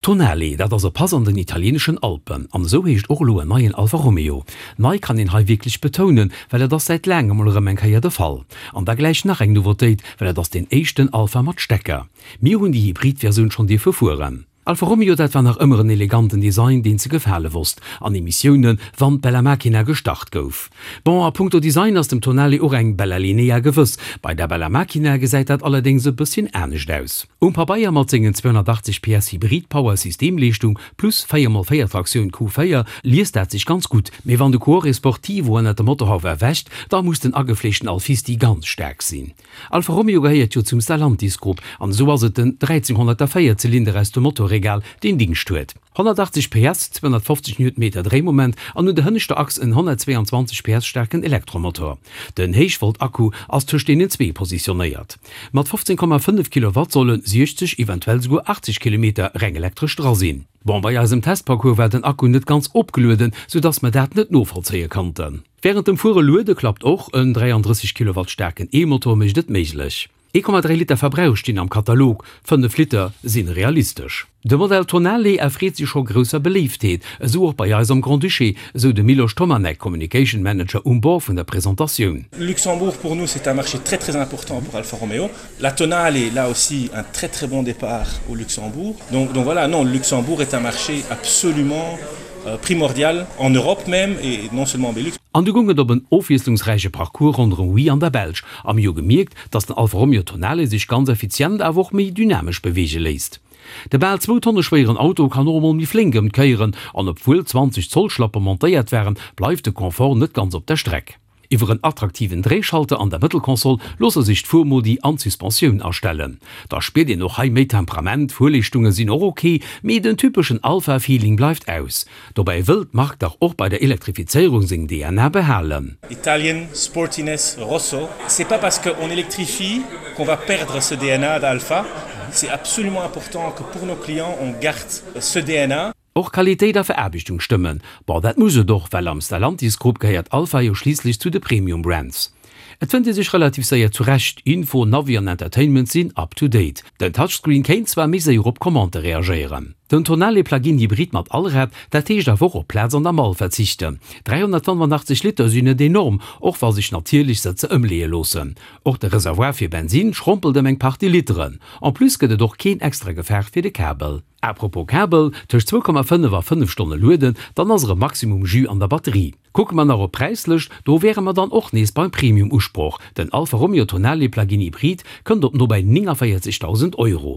Tonale, dat ass e Pass an den italieeneschen Alpen. An esou heescht och elo en neien Alfa Romeo. Nei kann een hei wierklech betounen, well et ass säit laangem mol erëm eng Kéier de Fall. An da gläich nach eng Nouveautéit, well et ass deen éischten Alfa mat Stecker. Mir hunn déi Hybrid-Versioun schonn dierfe fueren. Alfa Romeo, dat war nach ëmmer en eleganten Design, deen ze gefale wosst, an Emissiounen, wann d'Bella Macchina gestart gouf. Bon, a punkto Design ass dem Tonale och eng Bella Linea gewëss. Bei der Bella Macchina gesäit dat allerdéngs e bësschen anescht aus. Um Pabeier mat sengen 280 PS Hybrid-Power Systemleeschtung plus 4 mol 4 Traktioun Q4 liest dat sech ganz gutt, mee wann de Cuore Sportivo ënnert dem Motorhauf erwächt, da muss den agefleeschten Alfisti ganz staark sinn. Alfa Romeo gehéiert jo zum Stellantis Grupp an esou ass et den 1304 Zylinder aus dem Motorregal deen Dingscht huet. 180 PS, 250 Newtonmeter Dréimoment an un der hënneschter Achs en 122 PS staarken Elektromotor. Den Héichvolt-Akku ass tëscht deenen zwee positionéiert. Mat 15,5 Kilowatt solle 60, eventuell souguer 80 Kilometer reng elektresch dra sinn. Bon, bei eisem Testparcours war den Akku net ganz opgelueden, soudass mer dat net novollzéie konnten. Wärend dem Fuere luede klappt och, en 33 Kilowatt staarken E-Motor mécht et méiglech. 1,3 Liter Verbrauch stinn am Katalog, 5 Liter si realistesch. De Modell Tonale erfreet sech scho grousser Beléiftheet, esou och bei eis am Grand-Duché, esou de Miloš Tomanek, Communication Manager um Bord vun der Presentatioun. Luxembourg pour nous c'est un marché très très important pour Alfa Romeo. La Tonale là aussi un très très bon départ au Luxembourg. Donc, donc voilà, non, Luxembourg est un marché absolument euh, primordial en Europe même et non seulement en Belux. An du goung et op en ofwiesslungsräiche Parcours ronderëm Huy an der Belsch a mir hu gemierkt, dass den Alfa Romeo Tonale sech ganz effizient awer och méi dynamesch beweege léisst. De bal zwou Tonne schwéieren Auto kann och emol méi flénk ëm d'Kéieren an obwuel 20 Zoll Schlappe montéiert waren, bleift de Confort net ganz op der Streck. Iwwer en attraktiven Dréischalter an der Mëttelkonsol loosse sech d'Fuermodi an d'Suspensioun astellen. Da spiert een och hei méi Temperament, d'Fuerleeschtunge sinn och ok, mee den typeschen Alfa-Feeling bleift aus. Dobäi wëll d'Mark dach och bei der Elektrifizéierung seng DNA behalen. Italien, Sportiness, Rosso, c'est pas parce qu'on électrifie qu'on va perdre ce DNA d'Alfa, c'est absolument important que pour nos clients on garde ce DNA. Och Qualitéit a Veraarbechtung stëmmen. Bon, dat muss et och, well am Stellantis Grupp gehéiert Alfa jo schliisslech zu de Premium Brands. Et fënnt ee sech relativ séier zurecht, Info, Navi an Entertainment sinn up to date. Den Touchscreen kéint zwar méi séier op Commandë reagéieren. Den Tonale Plug-in Hybrid mat Allrad, dat heescht awer och op Plaz an der Mall verzichten. 385 Liter sinn net enorm, och wa sech natierlech Sëtzer ëmleeë loossen. Och de Reservoir fir Bensin schrompelt ëm eng Partie Literen. En plus gëtt et och keen extra Gefaach fir de Kabel. A propos Kabel, tëscht 2,5 a 5 Stonne lueden, dann ass erëm maximum Jus an der Batterie. Kucke mer nach op d'Präislëscht, do wäre mer dann och nees beim Premium-Usproch, den Alfa Romeo Tonale Plug-in Hybrid kënnt op nobäi 49.000 Euro.